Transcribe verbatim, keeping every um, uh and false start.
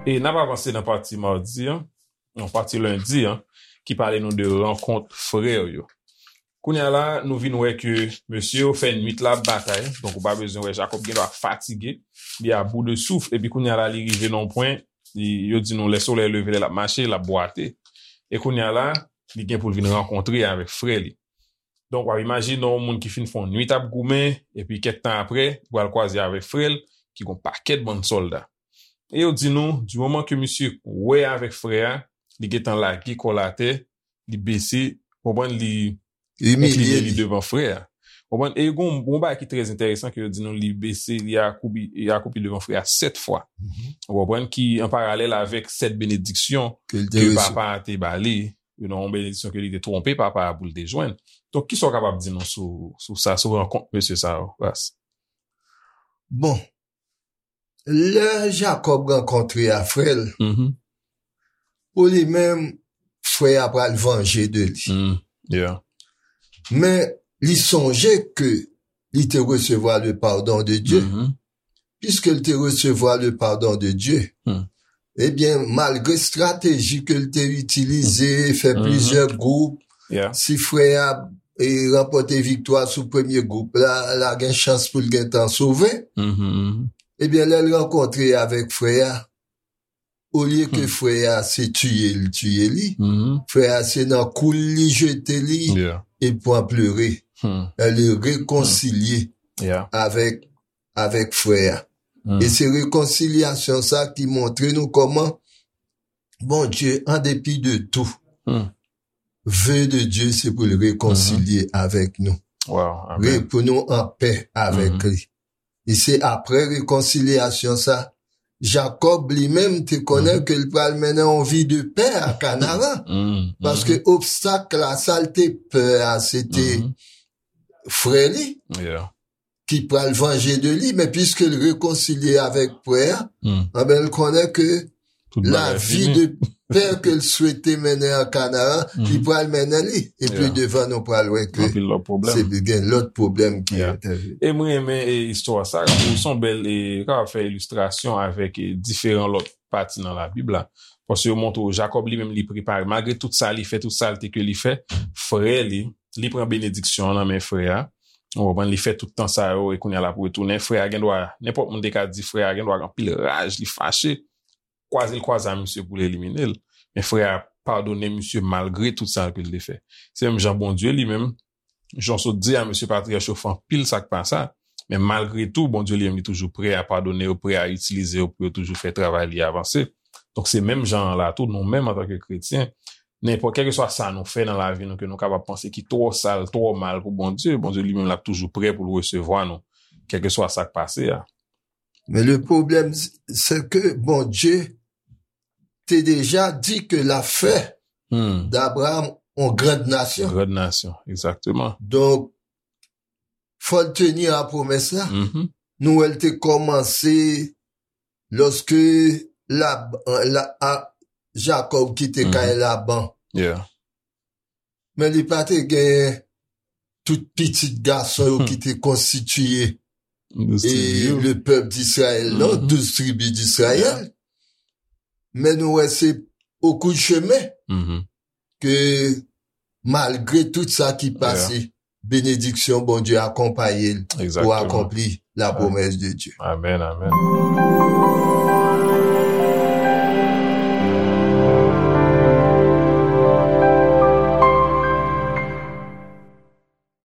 E n ap avanse nan pati madi an, non, pati lendi an, ki pale nou de rankont frè yo. Kounye a la, nou vin wè ke mesye yo fè nwit la ap batay, donk ou pa bezwen wè Jakòb gen dwa fatige, li a bout de souf, epi kounye a la, li rive nan yon pwen, li, yo di nou lè solèy leve, lè l ap mache, l ap bwate. E kounye a la, li gen pou l vin rankontre avèk frè li. Donk, w ap imajine yon moun ki fin fè yon nwit ap goumen, epi kèk tan apre, li pral kwaze avèk frè l, ki gon pakèt bann sòlda. E yo di nou, di moman ke misye wè avèk frè a, li gentan lage kò l atè, li bese, konprann, li Imilye inkline li li. Devan frè a. Konprann? E gon, gon bagay ki trè enteresan ke yo di nou, li bese, li akoubi, li akoupi devan frè a sèt fwa. Mhm. Ou konprann? Ki an paralèl avèk sèt benediksyon Ke l te ke resevwa. Papa a te ba li, you know, yon benediksyon ke li te twonpe papa a pou l te jwenn. Donk, kisa w kapab di nou sou, sou sa, sou rankont mesye sa yo, Ras? Bon, lè Jakòb rankontre a frè l, Mhm. pou li menm, frè a pral vanje de li. Mm, yeah. Men li sonje ke li te resevwa le pardon de Dye. Mhm. Piske l te resevwa le pardon de Dye, Hmm. ebyen, malgre estrateji ke l te itilize, fè Mhm. plizyè gwoup, Yeah. si frè a e ranpòte viktwa sou premye gwoup la, la gen chans pou l gentan sove. Mhm, mhm. Ebyen, lè l rankontre avèk frè a, olye ke Hmm. frè a se tiye l tiye li, Mhm. frè a se nan kou l li jete li, Yeah. e pran plere. Hmm. Lè li rekonsilye Yeah. avèk, avèk frè a. Hmm. E se rekonsilyasyon sa ki montre nou kòman Bondye, an depi de tou, Hmm. ve de Dye se pou l rekonsilye avèk nou. Wow, Re-, amen. Pou nou an pè avèk Mhm. li. E se apre rekonsilyasyon sa, Jakòb li menm te konnen Mhm. ke l pral mennen yon vi de pè a Kanaran. Mm, Paske mhm. obstak la, sa l te pè a, se te Mhm. frè li Yeah. ki pral vanje de li, men piske l rekonsilye avèk frè a, Mm. anben, l konnen ke Tout bagay lavi fini. de pè ke l swete mennen an Kanaran, li Mhm. pral mennen li. Epi Yeah. devan nou pral wè ke Anpil lòt pwoblèm. se gen lòt pwoblèm ki Yeah. entèveni. E mwen renmen, e, istwa sa, ou se yon bèl, e, kapab fè ilistrasyon avèk, e, diferan lòt pati nan Labib la. Paske yo montre w, Jakòb li menm li prepare, malgre tout sa li fè, tout salte ke li fè, frè li, li pran benediksyon an nan men frè a. Ou konprann, li fè tout tan sa yo, e kounye a l ap retounen. Frè a gen dwa, nenpòt moun te ka di frè a gen dwa gen anpil raj, li fache. Kwaze l kwaze a misye pou l elimine l. Men frè a padone misye malgre tout sa ke l te fè. Se menm jan Bondye li menm, jan w sot di a, mesye patriyach yo fè anpil sa k pa sa, men malgre tou, Bondye li menm li toujou prè a padone yo, prè a itilize yo pou yo toujou fè travay li avanse. Donk se menm jan an la tou, nou menm antanke kretyen, nenpòt, kèlkeswa sa nou fè nan lavi nou, ke nou kapab panse ki twò sal, twò mal pou Bondye, Bondye li menm l ap toujou prè pou l resevwa nou, kèlkeswa sa k pase a. Men le pwoblèm, se ke Bondye te deja di ke l ap fè Hmm. d'Abraham yon grand nasyon. Grand nasyon, egzakteman. Donk, fò l teni a pwomès la. Mhm. Nou wè l te kòmanse lòske Lab-, la, a, Jakòb kite Mhm. kay Laban. Yeah. Men li pa te gen tout pitit gason yo Mhm. ki te konstitiye Douz e tribi yo. le pèp d'Izrayèl, non, Mhm. douz tribi d'Izrayèl. Yeah. Men nou wè se o kou de chemen Mhm. ke malgre tout sa ki pase, Yeah. benediksyon Bondye akonpaye l pou Egzakteman. akonpli la Ah. pwomès de Dye. Amèn, amèn.